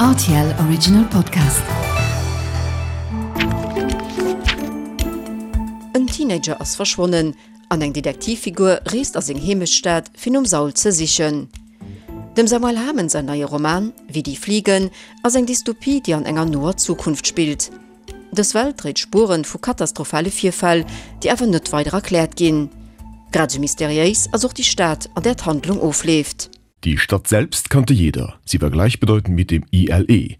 Rtl Original Podcast. En Teenager ass verschwonnen an eng Detektivfigur reest a seng Heemechtsstad fir nom Saul ze sichen. Dem Samuel Hamen säin neie Roman Wie die Fliegen ass eng Dystopie, déi an enger noer Zukunft spillt. Dës Welt dréit Spueren vu katastrophale Virfäll, déi awer net weider erkläert ginn. Grad esou mysteriéis ass och déi Stad, an där d'Handlung ofleeft. Die Stadt selbst kannte jeder, sie war gleichbedeutend mit dem ILE.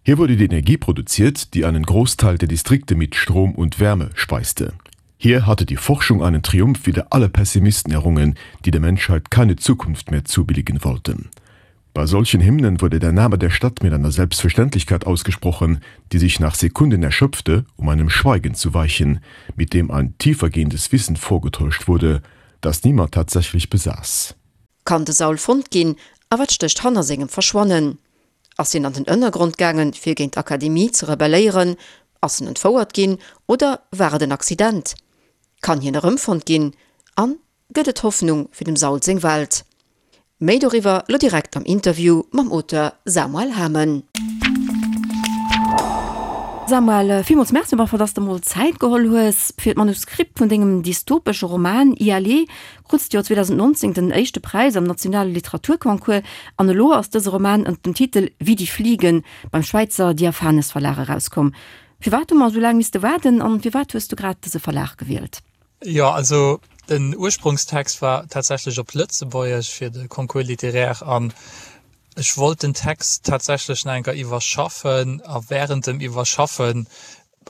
Hier wurde die Energie produziert, die einen Großteil der Distrikte mit Strom und Wärme speiste. Hier hatte die Forschung einen Triumph wider alle Pessimisten errungen, die der Menschheit keine Zukunft mehr zubilligen wollten. Bei solchen Hymnen wurde der Name der Stadt mit einer Selbstverständlichkeit ausgesprochen, die sich nach Sekunden erschöpfte, um einem Schweigen zu weichen, mit dem ein tiefergehendes Wissen vorgetäuscht wurde, das niemand tatsächlich besaß. Kann de Saul fonnt ginn a wat stécht hanner sengem Verschwannen? Ass hien an den Ënnergrond gaangen, fir géint d'Akademie ze rebelléieren? Ass en entfouert ginn oder war et en Accident? Kann hien erëmfonnt ginn? An gëtt et Hoffnung fir dem Saul seng Welt? Méi doriwwer lo direkt am Interview mam Auteur Samuel Hamen. Samuel, villmools Merci op alle Fall, dass de mol Zäit geholl hues fir d'Manuskript vun dengem dystopesche Roman ILE. Krutst d'Joer 2019 den éischte Präis am nationale Literaturconcours an elo ass dëse Roman ënnert dem Titel Wie die Fliegen beim Schwäizer Diaphanes Verlag erauskomm. Firwat hu mer esou laang misste waarden an firwat hues du grad dëse Verlag gewielt? Jo, also den Ursprungstext war tatsächlech op Lëtzebuergesch fir de Concours littéraire an ech wollt den Text tatsächlech nach eng Kéier iwwerschaffen a während dem Iwwerschaffen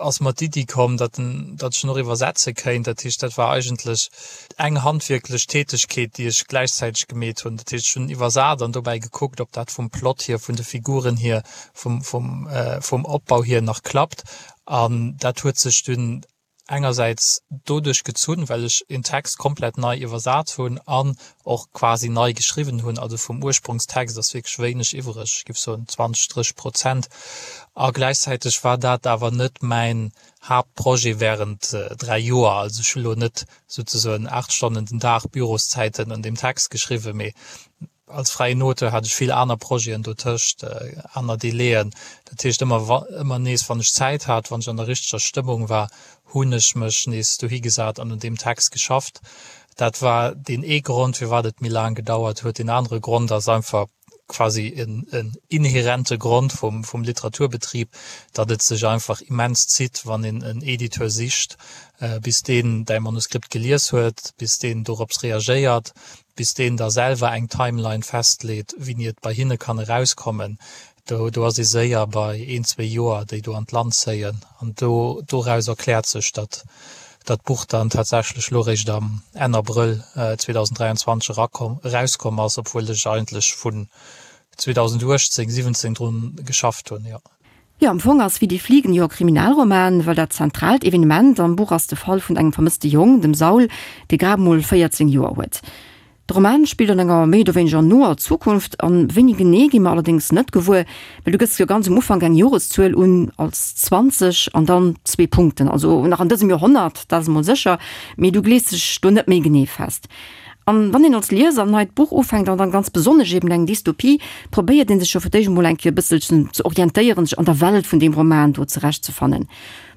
ass mer d'Iddi komm, datt en, datt ech en och iwwersetze kéint. Dat heescht, dat war eigentlech eng handwierklech Tätegkeet, déi ech gläichzäiteg gemeet hunn. Dat heescht, ech hunn iwwersat an dobäi gekuckt, ob dat vum Plot hier, vun de Figuren hier, vum, vum, vum Opbau hier nach klappt an dat huet sech dunn engersäits doduerch gezunn, well ech een Text komplett nei iwwersat hunn an och quasi nei geschriwwen hunn, also vum Ursprongstext ass wierklech wéineg iwwreg, ech géif soen 20, 30 Prozent. A gläichzäiteg war dat awer net mäin Haaptprojet während 3 Joer, also ech hu lo net souzesoen 8 Stonnen den Dag Büroszäiten un deem Text geschriwwen, mee Als fräien Auteur hat ech vill aner Projeten dotëscht, aner Delaien. Dat heescht, ëmmer ëmmer nees, wann ech Zäit hat, wann ech an der richteger Stëmmung war, hunn ech mech nees dohi gesat an un deem Text geschafft. Dat war deen ee Grond, firwat et méi laang gedauert huet. Deen anere Grond ass einfach quasi en inhärente Grond vum vum Literaturbetrib, datt et sech einfach immens zitt, wann een en Editeur sicht, bis deen däi Manuskript gelies huet, bis deen dorops reagéiert, bis deen da selwer eng Timeline festleet, wéini et bei hinne kann erauskommen, do do ass ee séier bei een, zwee Joer, déi do an d'Land zéien. An do doraus erkläert sech, datt datt d'Buch dann tatsächlech elo réischt am Enn Abrëll 2023 erakomm erauskomm ass, obwuel ech eigentlech vun 2018, 17 drun geschafft hunn, jo. Jo, am Fong ass Wie die Fliegen jo e Kriminalroman, well dat zentraalt Evenement am Buch ass de Fall vun engem vermësste Jong, dem Saul, dee grad mol 14 Joer huet. De Roman spillt an enger méi oder wéineger noer Zukunft, an wéini genee gi mer allerdéngs net gewuer, well du gëss jo ganz um Ufank eng Joreszuel un als 20 an dann zwee Punkten, also nach an dësem Joerhonnert, dat ass emol sécher, mee du glees dech do net méi genee fest. An wann een als Lieser en neit Buch ufänkt, an dann ganz besonnesch eben eng Dystopie, probéiert een sech jo fir d'éischt emol eng Kéier e bësselchen ze orientéieren, sech an der Welt vun deem Roman do zurechtzefannen.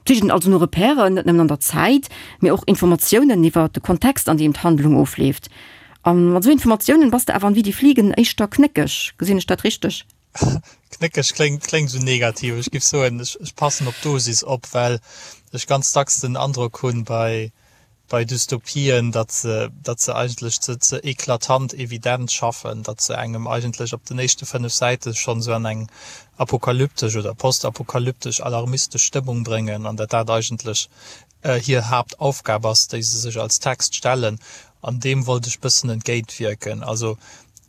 Sicht een also no Repèren, net nëmmen an der Zäit, mee och Informatiounen iwwer de Kontext, an deem d'Handlung ofleeft. A mat esou Informatiounen bass de awer an Wie die Fliegen éischter knéckeg. Gesinn ech dat richteg? Knéckeg kléngt, kléngt esou negativ. Ech géif soen, ech, ech passen op d'Dosis op, well ech ganz dacks den Androck hunn bei, bei Dystopien, datt se, datt se eigentlech ze, ze eklatant evident schaffen, datt se engem eigentlech op den éischte 5 Säite schonn esou an eng apokalyptesch oder postapokalyptesch alarmistesch Stëmmung bréngen an datt dat eigentlech hir Haaptaufgab ass, déi se sech als Text stellen. An deem wollt ech bëssen entgéintwierken. Also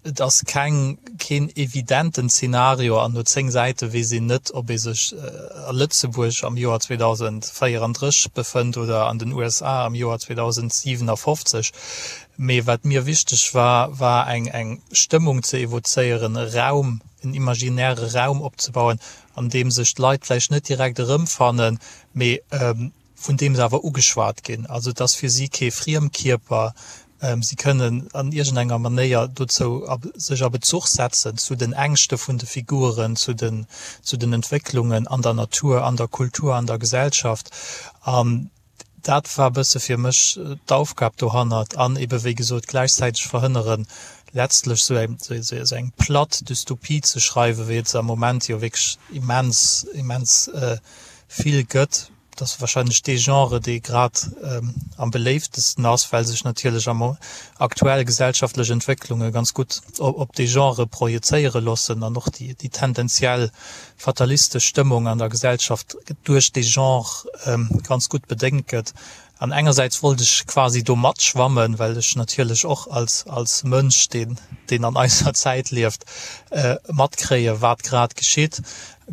et ass keng, keen evidenten Zeenario an no 10 Säite weess een net, ob ee sech a Lëtzebuerg am Joer 2034 befënnt oder an den USA am Joer 2057. Mee wat mir wichteg war, war eng, eng Stëmmung ze evozéieren, e Raum, en imaginäre Raum opzebauen, an deem sech d'Leit vläicht net direkt erëmfannen, mee vun deem se awer ugeschwat ginn. Also et ass fir si kee Friemkierper. Si kënnen an iergendenger Manéier dozou sech a Bezuch setzen zu den Ängschte vun de Figuren, zu den, zu den Entwécklungen an der Natur, an der Kultur, an der Gesellschaft. An dat war e bësse fir mech d'Aufgab dohannert. An ebe wéi gesot gläichzäiteg verhënneren, letztlech esou eng, esou eng platt Dystopie ze schreiwen, wéi et se am Moment jo wierklech immens, immens vill gëtt. Et ass wahrscheinlech dee Genre, dee grad am beléiftesten ass, well sech natierlech am aktuell gesellschaftlech Entwécklunge ganz gutt op dee Genre projezéiere loossen an och déi tendenziell fatalistesch Stëmmung an der Gesellschaft duerch dee Genre ganz gutt bedéngt gëtt. An engersäits wollt ech quasi do matschwammen, well ech natierlech och als als Mënsch, deen deen an eiser Zäit lieft, matkréie wat grad geschitt.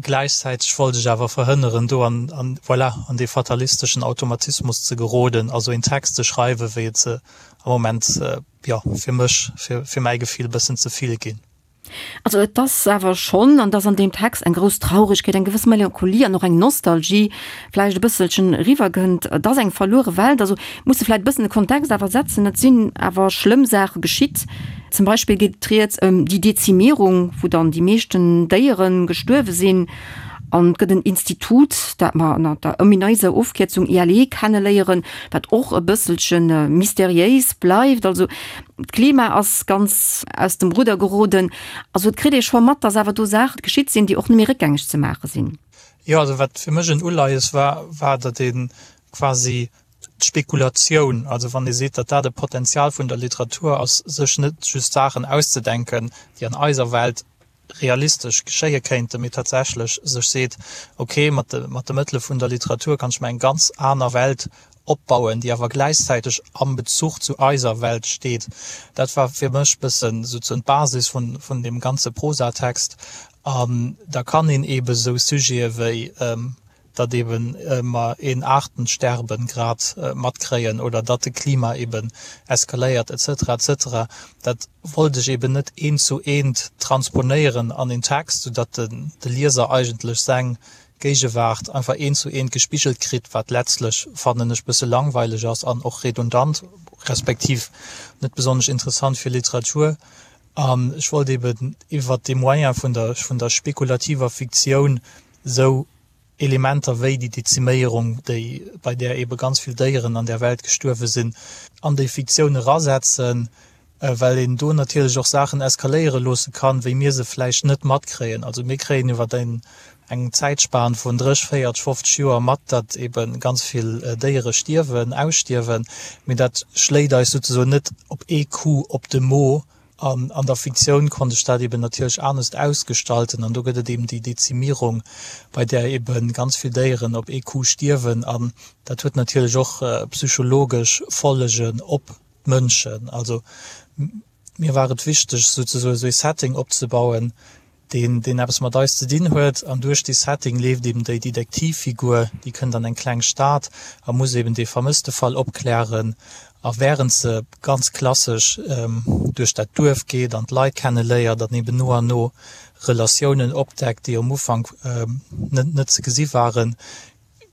Gläichzäiteg wollt ech awer verhënneren, do an an voilà an dee fatalisteschen Automatismus ze geroden, also een Text ze schreiwen, wéi et se am Moment, jo, fir mech, fir fir mäi Gefill e bëssen ze vill ginn. Also et ass awer schonn, an et ass an deem Text eng grouss Traurigkeet, eng gewëss Melancholie an och eng Nostalgie vläicht e bësselchen eriwwergënnt. Et ass eng verluere Welt. Also muss e vläicht e bëssen de Kontext awer setzen. Et sinn awer schlëmm Saache geschitt. Zum Beispill geet et rieds ëm déi Dezimierung, wou dann déi meeschten Déiere gestuerwe sinn. An et gëtt en Institut, dat mer ënner der omineiser Ofkierzung ILE kenneléieren, wat och e bësselche mysteriéis bleift. Also d'Klima ass ganz aus dem Rudder geroden. Also et kritt ee scho mat, dass awer do Saache geschitt sinn, déi och net méi réckgängeg ze maache sinn. Jo, also wat fir mech en Uleies war, war, datt ee quasi d'Spekulatioun, also wann ee seet, datt dat e Potenzial vun der Literatur ass, sech net just Saachen auszedenken, déi an eiser Welt realistesch geschéie kéinten, mee tatsächlech sech seet, ok, mat de mat de Mëttele vun der Literatur kann ech mer eng ganz aner Welt opbauen, déi awer gläichzäiteg am Bezuch zu eiser Welt steet. Dat war fir mech bëssen souzesoen d'Basis vun vun deem ganze Prosatext. An da kann een eebe sou Sujete wéi datt eben mer een Artensterben grad matkréien oder datt de Klima eben eskaléiert et cetera et cetera, dat wollt ech eben net eent zu eent transponéieren an een Text, soudatt de Lieser eigentlech seng Géigewaart einfach eent zu eent gespigelt kritt, wat letztlech, fannen ech, bësse langweileg ass an och redundant, respektiv net besonnesch interessant fir Literatur. An ech wollt eben iwwert dee Moyen vun der vun der spekulativer Fiktioun esou Elementer wéi déi Deziméierung, déi, bei där eebe ganz vill Déieren an där Welt gestuerwe sinn, an déi Fiktioun erasetzen, well een do natierlech och Saachen eskaléiere loosse kann, wéi mir se vläicht net matkréien. Also mir kréien iwwer eng Zäitspan vun 30, 40, 50 Joer mat, datt eebe ganz vill Déiere stierwen, ausstierwen, mee dat schléit eis souzesoen net op ee Coup op de Mo An an der Fiktioun konnt ech dat eben natierlech anescht ausgestalten. An do gëtt et eben déi Dezimierung, bei där ebe ganz vill Déieren op ee Coup stierwen. An dat huet natierlech och psychologesch Follegen op d'Mënschen. Also mir war et wichteg, souzesoe sou ee Setting opzebauen, deen deen eppes mat eis ze dinn huet, an duerch dee Setting leeft eben déi Detektivfigur, déi kënnt an eng kleng Stad a muss eben dee Vermësstefall opklären. A wärend se ganz klassesch duerch dat Duerf geet an d'Leit kenne léiert an eben no an no Relatiounen opdeckt, déi um Ufank net net ze gesi waren,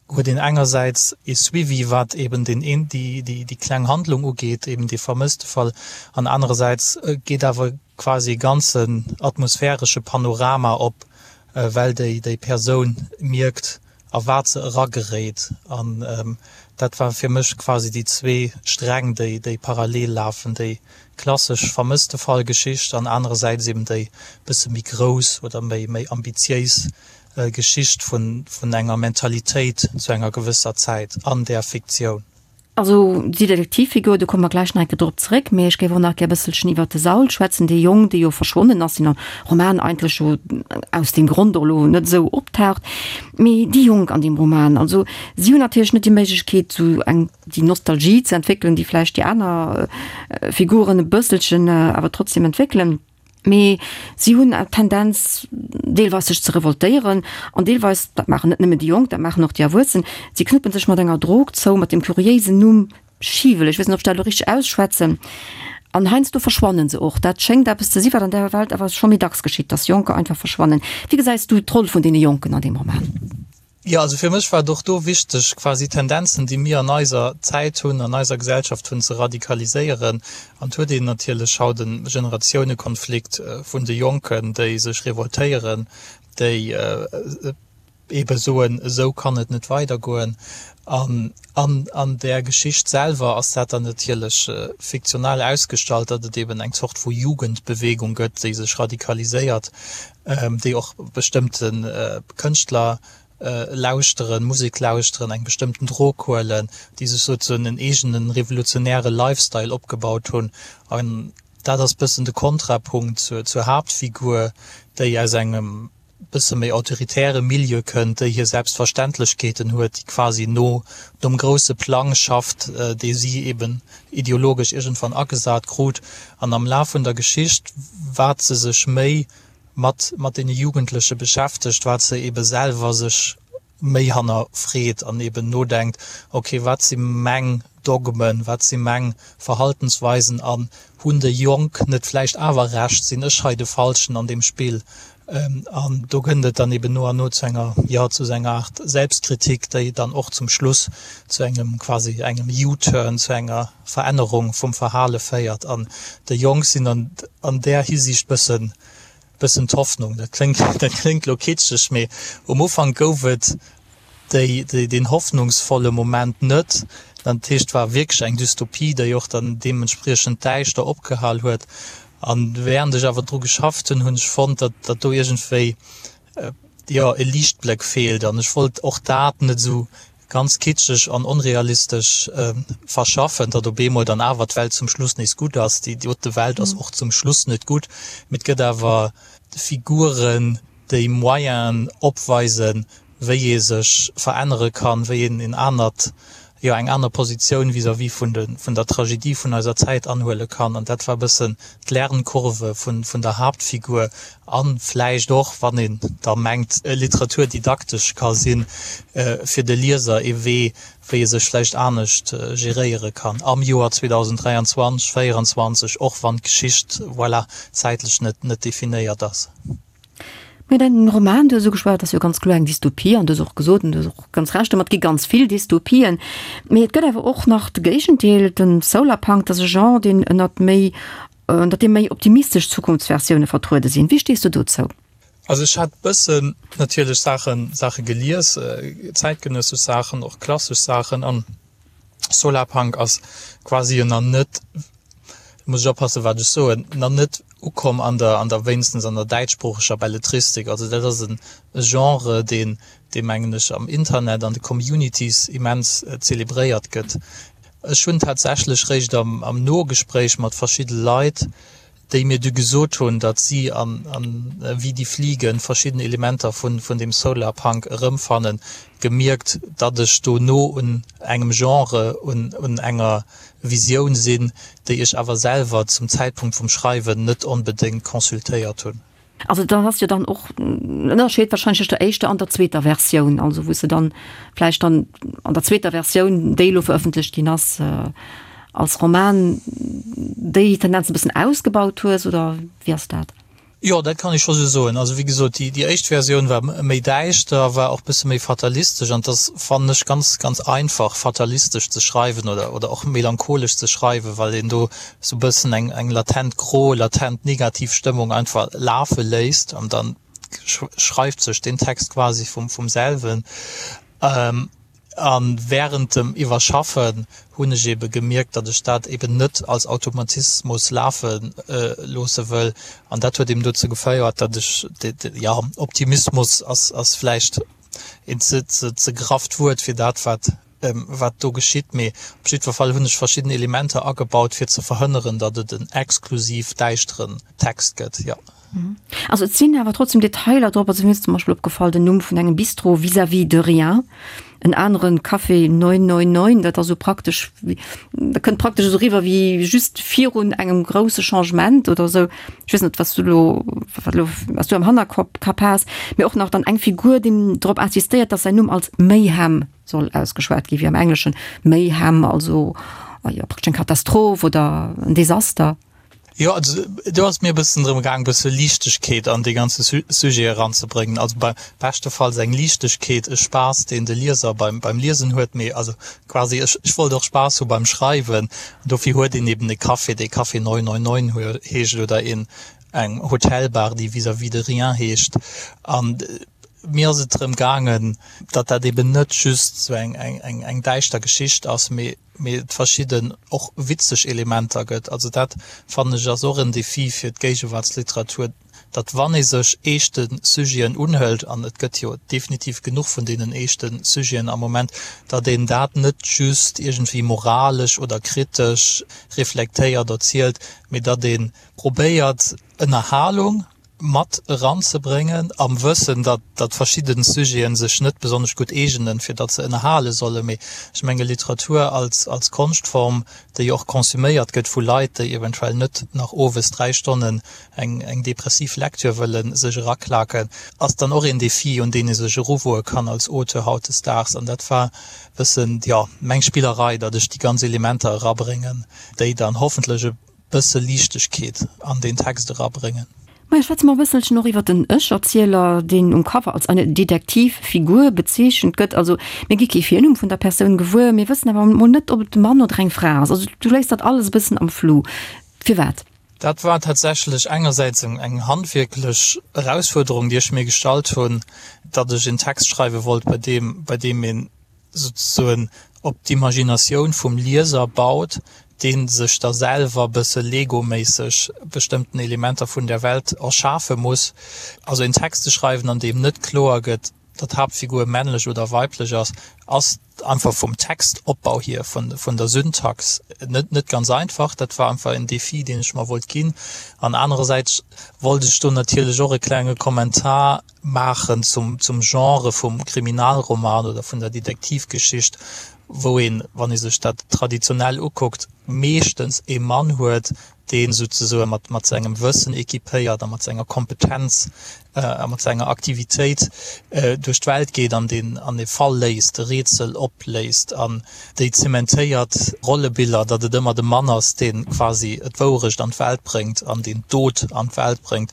huet een engersäits ee Suivi, wat eben den een, déi, déi, déi kleng Handlung ugeet, eben dee Vermësstefall, an anerersäits geet awer quasi e ganzen atmosphäresche Panorama op, well déi, déi Persoun mierkt, a wat se erageréit. An dat war fir mech quasi déi zwee Sträng, déi, déi parallel lafen, déi klassesch Vermësstefall-Geschicht an anerersäits eben déi bësse méi grouss oder méi, méi ambitiéis Geschicht vun enger Mentalitéit zu enger gewësser Zäit an där Fiktioun. Also déi Detektivfigur, do komme mer gläich nach eng Kéier drop zeréck, mee ech géif och nach gär e bësselchen iwwert de Saul schwätzen, dee Jong, dee jo verschwonnen ass, deen am Roman eigentlech jo aus deem Grond och elo net esou optaucht. Mee déi Jonk an deem Roman, also si hunn natierlech net déi Méiglechkeet, esou eng, déi Nostalgie ze entwéckelen, déi vläicht déi aner Figuren e bësselchen awer trotzdem entwéckelen. Mee si hunn d'Tendenz, deelweis sech ze revoltéieren an deelweis, dat maachen net nëmmen déi Jonk, dat maachen och déi Erwuessen, si knuppen sech mat enger Drog zou, mat deem kuriéisen Numm Schiwel, ech weess net, ob ech dat elo richteg ausschwätzen, an heiansdo verschwannen se och. Dat schéngt eppes ze si wat an der Welt awer scho méi dacks geschitt, dass Jonker einfach verschwannen. Wéi gesäis du d'Roll vun deene Jonken an deem Roman? Jo, also fir mech war et och do wichteg, quasi Tendenzen, déi mir an eiser Zäit hunn, an eiser Gesellschaft hunn, ze radikaliséieren. An et huet een natierlech haut e Generatiounekonflikt vun de Jonken, déi sech revoltéieren, déi eebe soen, esou kann et net weidergoen. An an där Geschicht selwer ass dat dann natierlech fiktional ausgestallt, datt et eeben eng Zort vu Jugendbewegung gëtt, déi sech radikaliséiert, déi och bestëmmte Kënschtler lauschteren, Musek lauschteren, eng bestëmmten Drog huelen, déi sech souzesoen en eegene revolutionäre Lifestyle opgebaut hunn. An dat ass bëssen de Kontrapunkt zur Haaptfigur, déi aus engem bësse méi autoritäre Milieu kënnt, déi hir Selbstverständlechkeeten huet, déi quasi no nom grousse Plang schafft, dee si eben ideologesch iergendwann agesat krut. An am Laf vun der Geschicht, wat se sech méi mat mat deene Jugendleche beschäftegt, wat se ebe selwer sech méi hannerfreet an eben nodenkt, ok, wat si meng Dogmen, wat si meng Verhaltensweisen an hunn déi Jonk net vläicht awer Recht, sinn ech hei de Falschen an deem Spill? An do kënnt et dann eben no an no zu enger, jo, zu esou enger Aart Selbstkritik, déi dann och zum Schluss zu engem quasi engem U-Turn, zu enger Verännerung vum Verhale féiert. An déi Jonk sinn an an där Hisiicht bëssen, bëssen d'Hoffnung. Dat kléngt, dat kléngt elo kitscheg, mee um Ufank gouf et déi, déi, deen hoffnungsvolle Moment net. Dat heescht, et war wierklech eng Dystopie, déi och dann deementspriechend däischter opgehal huet. An während ech awer dru geschafft hunn, hunn ech fonnt, datt, datt do iergendwéi, jo, e Liichtbléck feelt. An ech wollt och dat net esou ganz kitscheg an onrealistesch verschaffen, datt op eemol dann awer d'Welt zum Schluss nees gutt ass. Déi dote Welt ass och zum Schluss net gutt, mee et gëtt awer Figuren, déi Moyenen opweisen, wéi ee sech verännere kann, wéi een en anert, jo eng aner Positioun vis-à-vis vun de, vun der Tragedie vun eiser Zäit anhuele kann. An dat war e bëssen d'Lernkurve vun, vun der Haaptfigur a vläicht och, wann een da mengt, Literatur didaktesch ka sinn, fir de Lieser ee Wee, wéi e sech vläicht anescht geréiere kann am Joer 2023, 2024, och wann d'Geschicht, voilà, zäitlech net, net definéiert ass. Mee däin Roman, du hues ugeschwat, ass jo ganz kloer eng Dystopie an du hues och gesot, an du hues och ganz Recht domat, et gi ganz vill Dystopien. Mee et gëtt awer och nach de Géigendeel, den Solarpunk, dat ass e Genre, deen ënnert méi, ënnert deem méi optimistesch Zukunftsversioune vertruede sinn. Wéi stees du dozou? Also ech hat bëssen natierlech Saachen, Saache gelies, zäitgenëssesch Saachen, och klassesch Saachen an Solarpunk ass quasi jo nach net, muss ech oppassen wat ech soen, nach net ukomm an der, an der, wéinstens an der däitschsproocheger Belletristik. Also dat ass e Genre, deen, dee mengen ech am Internet, an de Communities immens zelebréiert gëtt. Ech hunn tatsächlech réischt am, am Nogespréich mat verschidde Leit, déi mir du gesot hunn, datt si an Wie die fliegen verschidden Elementer vun dem Solarpunk erëmfannen, gemierkt, datt ech do no un engem Genre, un enger Visioun sinn, déi ech awer selwer zum Zäitpunkt vum Schreiwen net onbedéngt consultéiert hunn. Also da ass jo dann och en Ënnerscheed wahrscheinlech tëscht der éischter an der zweeter Versioun, also wou s de dann vläicht dann an der zweeter Versioun, déi elo verëffentlecht ginn ass, als Roman déi Tendenz e bëssen ausgebaut hues, oder wéi ass dat? Jo, dat kann ech scho sou soen. Also wéi gesot, déi, déi éischt Versioun war méi däischter, war och bësse méi fatalistesch an et ass, fannen ech, ganz, ganz einfach fatalistesch ze schreiwen oder, oder och melancholesch ze schreiwen, well een do sou bëssen eng, eng latent gro, latent negativ Stëmmung einfach lafe léisst an dann schreift sech den Text quasi vum, vum selwen. A während dem Iwwerschaffen hunn ech ebe gemierkt, datt ech dat eben net als Automatismus lafe loosse wëll. An dat huet eben dozou geféiert, datt ech, jo, Optimismus ass, ass vläicht een ze, ze, ze grafft Wuert fir dat, wat wat do geschitt, mee op jiddwer Fall hunn ech verschidden Elementer agebaut, fir ze verhënneren, datt et en exklusiv däischteren Text gëtt, jo. Also et sinn awer trotzdem Detailer drop. Also mir ass zum Beispill opgefall den Numm vun engem Bistro Vis-à-vis de rien, en aneren Café 999, dat ass esou praktesch wéi, dat kënnt praktesch esou eriwwer wéi just virun engem grousse Changement oder esou. Ech weess net, wat s du elo, wat elo, wat s du am Hannerkopp Kapp has, mee och nach dann eng Figur, déi drop insistéiert, datt säin Numm als Mayhem soll ausgeschwat gi wéi am Engleschen Mayhem, also jo praktesch eng Katastroph oder en Desaster. Jo, also do ass et mir e bëssen drëm gaang, e bësse Liichtegkeet an dee ganze Sujet eranzebréngen. Also bei beschtefalls eng Liichtegkeet, e Spaass, deen de Lieser beim, beim Liesen huet, mee also quasi ech, ech wollt och Spaass hu beim Schreiwen. An dofir huet een eben e Café, dee Café 999 heescht oder een, eng Hotelbar, déi Vis-à-vis de rien heescht. An mir ass et drëm gaangen, datt dat eben net just esou eng, eng, eng, eng däischter Geschicht ass, mee, mee et verschidden och witzeg Elementer gëtt. Also dat fannen ech ass och en Défi fir d'Géigewaartsliteratur, datt wann ee sech eeschte Sujeten unhëlt, an et gëtt jo definitiv genuch vun deenen eeschte Sujeten am Moment, datt een dat net just iergendwéi moralesch oder kritesch reflektéiert erzielt, mee datt ee probéiert Ënnerhalung mat eranzebréngen, am Wëssen, datt datt verschidden Sujeten sech net besonnesch gutt eegenen, fir datt se ënnerhale sollen. Mee ech menge Literatur als als Konschtform, déi och konsuméiert gëtt vu Leit, déi eventuell net nach owes 3 Stonnen eng eng depressiv Lektür wëlle sech eraklaken, ass dann och een Defi, un deen ee sech eruwoe kann als Auteur hautdesdaags. An dat war bëssen, jo, meng Spillerei, datt ech déi ganz Elementer erabréngen, déi dann hoffentlech e bësse Liichtegkeet an deen Text erabréngen. Maja, schwätze mer e bësselchen och iwwer den Ech-Erzieler, deen um Cover als eine Detektivfigur bezeechent gëtt. Also mir gi kee Virnumm vun der Persoun gewuer, mir wëssen awer mol net, ob et e Mann oder eng Fra ass. Also du léiss dat alles e bëssen am Flou. Firwat? Dat war tatsächlech engersäits eng handwierklech Erausfuerderung, déi ech mir gestallt hunn, datt ech en Text schreiwe wollt, bei deem, bei deem een souzesoen op d'Imaginatioun vum Lieser baut, dee sech da selwer bësse Lego-méisseg bestëmmten Elementer vun der Welt erschafe muss. Also en Text ze schreiwen, an deem net kloer gëtt, datt d'Haaptfigur männlech oder weiblech ass, ass einfach vum Textopbau hier, vun der Syntax net net ganz einfach. Dat war einfach en Defi, deen ech mer wollt ginn. An anerersäits wollt ech do natierlech och e klenge Kommentar maachen zum, zum Genre vum Kriminalroman oder vun der Detektivgeschicht, wou een, wann ee sech dat traditionell ukuckt, meeschtens ee Mann huet, dee souzesoe mat, mat sengem Wëssen équipéiert a mat senger Kompetenz a mat senger Aktivitéit duerch d'Welt geet an deen an e Fall léist, e Rätsel opléist. An déi zementéiert Rollebiller, datt et ëmmer de Mann ass, dee quasi d'Wourecht an d'Welt bréngt an deen d'Dot an d'Welt bréngt,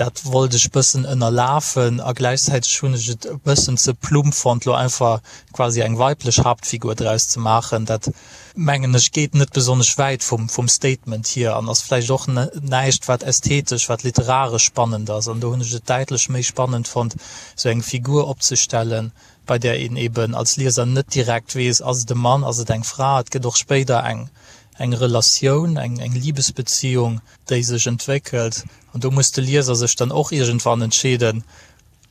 Dat wollt ech bëssen ënnerlafen a gläichzäiteg hunn ech et e bëssen ze plump fonnt, lo einfach quasi eng weiblech Haaptfigur draus ze maachen. Dat, mengen ech, geet net besonnesch wäit vum, vum Statement hier an ass vläicht och näischt, wat ästhetesch, wat literaresch spannend ass. An do hunn ech et däitlech méi spannend fonnt, sou eng Figur opzestellen, bei där een eben als Lieser net direkt weess, ass et e Mann, ass et eng Fra. Et gëtt och spéider eng, eng Relatioun, eng, eng Libesbeziung, déi sech entwéckelt. An do muss de Lieser sech dann och iergendwann entscheeden,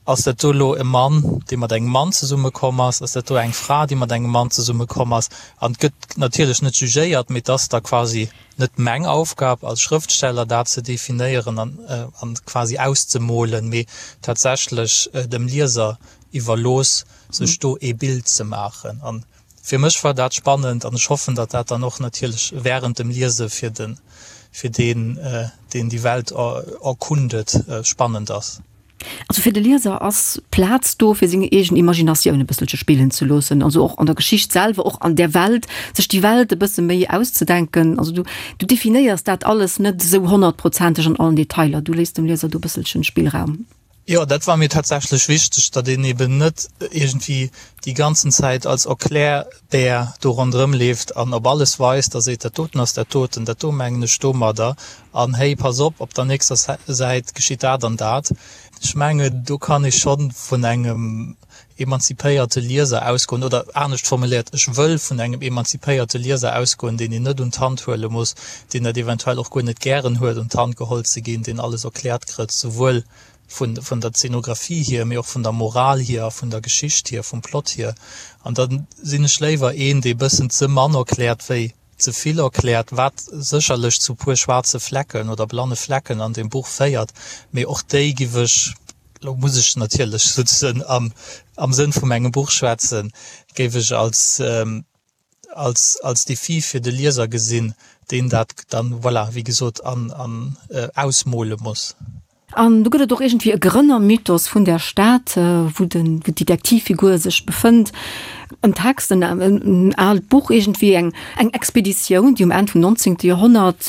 Ass dat do elo e Mann, dee mat engem Mann zesummekomm ass? Ass dat do eng Fra, déi mat engem Mann zesummekomm ass? An et gëtt natierlech net jugéiert, mee et ass da quasi net meng Aufgab als Schrëftsteller, dat ze definéieren an quasi auszemolen, mee tatsächlech dem Lieser iwwerlooss, sech do ee Bild ze maachen. An Fir mech war dat spannend an ech hoffen, datt dat dann och natierlech während dem Liese fir den, fir deen, deen déi Welt erkundet, spannend ass. Also fir de Lieser ass Plaz do, fir seng eegen Imaginatioun e bësselche spillen ze loossen, also och an der Geschicht selwer, och an där Welt, sech déi Welt e bësse méi auszedenken. Also du, du definéiers dat alles net esou honnertprozenteg an allen Detailer, du léiss dem Lieser do e bësselchen Spillraum. Jo, dat war mir tatsächlech wichteg, datt een eben net iergendwéi déi ganzen Zäit als Erklärbär do ronderëm leeft an op alles weist a seet, dat doten ass dat doten, dat do mengen ech domadder an hey, pass op, op der nächster Säit geschitt dat an dat. Ech mengen, do kann ee scho vun engem emanzipéierte Lieser ausgoen, oder anescht formuléiert, ech wëll vun engem emanzipéierte Lieser ausgoen, deen een net un d'Hand huele muss, deen dat eventuell och guer net gären huet, un d'Hand geholl ze ginn, deen alles erkläert kritt, souwuel vun, vun der Zeenografie hier, mee och vun der Moral hier a vun der Geschicht hier, vum Plot hier. An da sinn ech léiwer een, dee bëssen ze mann erkläert, wéi ze vill erkläert, wat sécherlech zu puer schwaarze Flecken oder blanne Flecken an deem Buch féiert, mee och déi giff ech, lo muss ech natierlech souzesoen am am Sënn vu mengem Buch schwätzen, géif ech als als als Defi fir de Lieser gesinn, deen dat dann, voilà, wéi gesot, an an ausmole muss. An do gëtt et och iergendwéi e Grënnermythos vun där Stad, wou den, wou d'Detektivfigur sech befënnt. En Text, en, en aalt Buch iergendwéi, eng, eng Expeditioun, déi um Enn vum 19. Joerhonnert.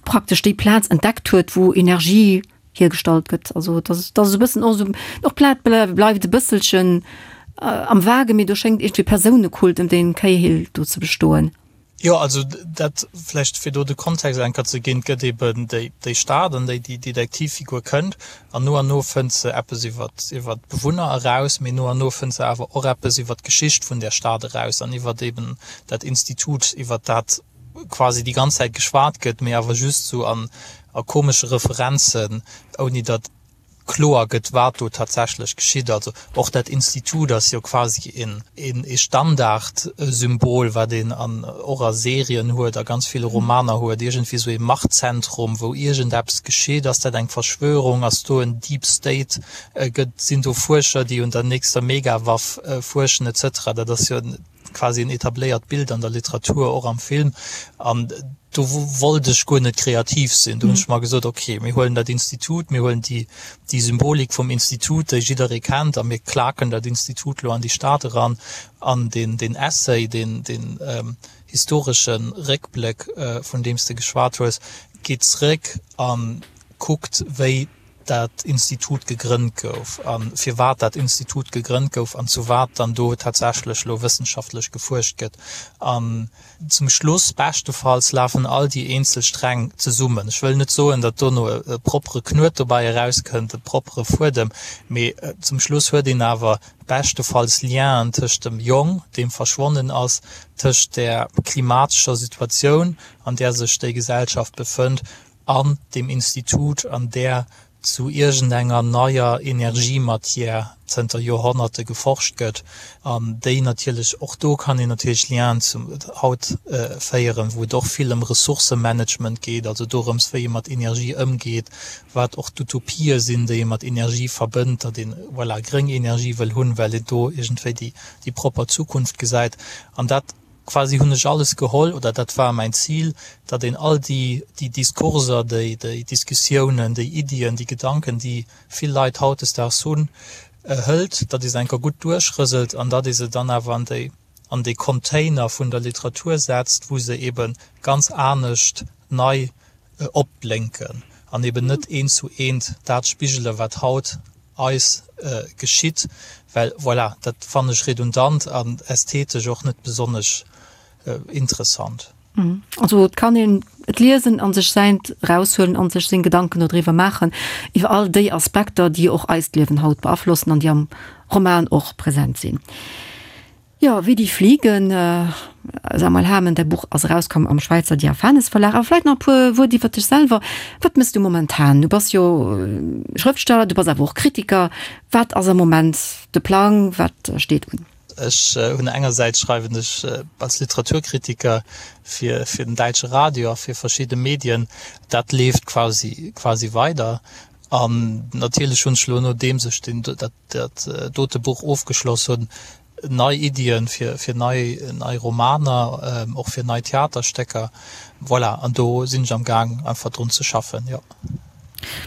praktesch déi Plaz entdeckt huet, wou Energie hiergestallt gëtt. Also et ass, et ass e bëssen och esou, och d'Plaz bleift e bësselchen am Vagen, mee do schéngt iergendwéi Persounekult ëm dee Cahill do ze bestoen. Jo, also dat vläicht fir do de Kontext eng Kéier ze ginn, Et gëtt eben déi, déi Stad, an déi déi Detektivfigur kënnt, an no an no fënnt se eppes iwwer, iwwer d'Bewunner eraus, mee no an no fënnt se awer och eppes iwwer d'Geschicht vun där Stad eraus an iwwer eben dat Institut, iwwer dat quasi déi ganz Zäit geschwat gëtt, mee awer just sou an a komesche Referenzen, ouni datt kloer gëtt, wat do tatsächlech geschitt. Also och dat Institut ass jo quasi een ee Standardsymbol, wat een an och a Serien huet, a ganz ville Romaner huet, iergendwéi sou ee Machtzentrum, wou iergendeppes geschitt. Ass dat eng Verschwörung? Ass do en Deep State? Gëtt, sinn do Fuerscher, déi un der nächster Megawaff fuerschen, et cetera? Dat ass jo quasi en etabléiert Bild an der Literatur, och am Film. An do wollt ech guer net kreativ sinn. Do hunn ech mer gesot, okay, mir huelen dat Institut, mir huelen déi, déi Symbolik vum Institut, déi jidderee kennt, a mir klaken dat Institut lo an déi Stad eran. An deen, deen Essay, deen, deen historesche Réckbléck, vun deem s de geschwat hues, geet zréck a kuckt, wéi dat Institut gegrënnt gouf a firwat dat Institut gegrënnt gouf an zu wat dann do tatsächlech elo wëssenschaftlech gefuerscht gëtt. An zum Schluss, beschtefalls, lafen all déi eenzel Sträng zesummen. Ech wëll net soen, datt dono e proppere Knuet dobäi erauskënnt, e proppere Fuedem, mee zum Schluss huet een awer beschtefalls Lienen tëscht dem Jong, deem verschwonnen ass, tëscht där klimatescher Situatioun, an där sech déi Gesellschaft befënnt, an deem Institut, an där zu iergendenger neier Energiematière zënter Joerhonnerte geforscht gëtt, an déi natierlech, och do kann een natierlech Lienen zum haut féieren, wou et och vill ëm Ressourcemanagement geet, also dorëms, wéi ee mat Energie ëmgeet, wat och d'Utopië sinn, déi ee mat Energie verbënnt, datt een, voilà, gréng Energie wëll hunn, well een do iergendwéi déi, déi propper Zukunft gesäit. An dat Quasi hunn ech alles geholl, oder dat war mäin Zil, datt een all déi, déi Diskurser, déi, déi Diskussiounen, déi Iddien, déi Gedanken, déi vill Leit hautdesdaags hunn, hëlt, datt ee se eng Kéier gutt duerchrëselt an datt ee se dann awer an déi, an dee Container vun der Literatur setzt, wou se eebe ganz anescht nei opblénken an eben net eent zu eent dat spigelen, wat haut eis geschitt, well voilà, dat fannen ech redundant an ästhetesch och net besonnesch interessant. Also et kann een et liesen an sech säint eraushuelen an sech seng Gedanken dodriwwer maachen, iwwer all déi Aspekter, déi och eist Liewen haut beaflossen an déi am Roman och present sinn. Jo, Wie die fliegen, Samuel Hamen, däi Buch ass erauskomm am Schwäizer Diaphanes Verlag. Awer vläit nach e puer Wuert iwwer dech selwer. Wat mëss du momentan? Du bass jo Schrëftsteller, du bass awer och Kritiker. Wat ass am Moment de Plang? Wat steet un? Ech hunn engersäits schreiwen ech als Literaturkritiker fir fir den däitsche Radio a fir verschidde Medien. Dat leeft quasi quasi weider. An natierlech hunn ech elo, nodeems ech deen dat dat dote Buch ofgeschloss hunn, nei Iddien fir fir nei nei Romaner, och fir nei Theaterstécker. Voilà, an do sinn ech am Gaang einfach drun ze schaffen, jo.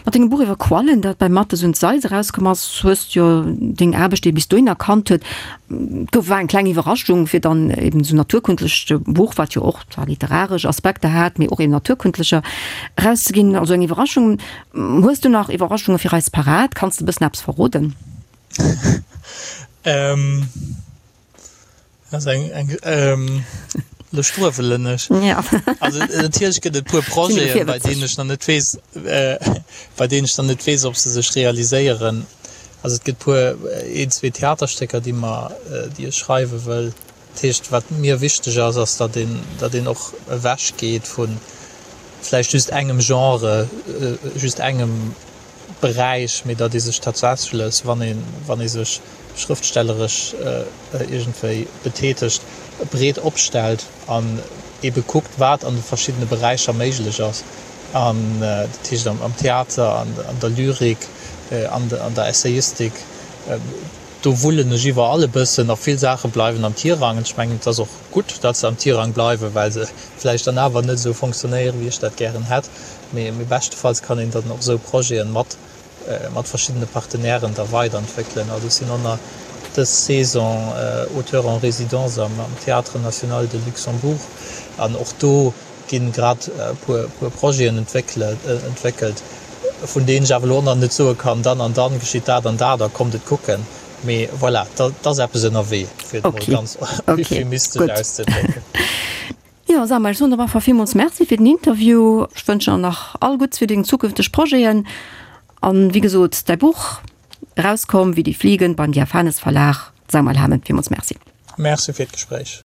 Mat dengem Buch iwwer Quallen, dat bei Matthes und Seitz erauskomm ass, hues du jo deng Aarbecht, déi bis dohin erkannt huet, gouf, war eng kleng Iwwerraschung, fir dann eben esou naturkundlecht Buch, wat jo och zwar literaresch Aspekter hat, mee och eben naturkundlecher, erauszeginn. Also eng Iwwerraschung. Hues du nach Iwwerraschunge fir eis parat? Kanns de e bëssen eppes verroden? Ähm, das eng, eng, ähm, lo struewelen ech. Ja. Also natierlech gëtt et puer Projeten, bei deenen ech nach net weess, äh, bei deenen ech nach net weess, ob se sech realiséieren. Also et gëtt puer, een, zwee Theaterstécker, déi mer, déi ech schreiwe wëll. Dat heescht, wat mir wichteg ass, ass, datt een, datt een och ewech geet vu vläicht just engem Genre, just engem Beräich, mee datt ee sech tatsächlech, wann ee, wann ee sech schrëftstelleresch iergendwéi betätegt, breet opstellt an eebe kuckt, wat an de verschiddene Beräicher méiglech ass. An dat heescht am Theater, an der Lyrik, an der Essayistik, do wullen ech iwwerall e bëssen a vill Saache bleiwen am Tirang. Ech mengen, et ass och gutt, datt se am Tirang bleiwen, well se vläicht dann awer net esou fonctionnéieren, wéi ech dat gären hätt. Mee beschtefalls kann een dann och esou Projete mat mat verschiddene Partenairen da weiderentwéckelen. Also ech sinn och nach dës Saison Auteur en résidence am Théâtre National de Luxembourg an och do. ginn grad e puer puer Projeten entwéckelt, vun deenen ech awer elo och nach net soe kann, dann an dann geschitt dat an dat a kommt et kucken. Mee voilà, et ass eppes ënnerwee, fir et mol ganz euphemistesch auszedrécken. Jo Samuel, ech soen der op alle Fall villmools Merci fir den Interview. Ech wënschen der nach all Gutts fir deng zukünfteg Projeten. An wéi gesot, däi Buch, erauskomm wéi die Fliegen beim Diaphanes Verlag. Samuel Hamen, villmools Merci. Merci fir d'Gespréich.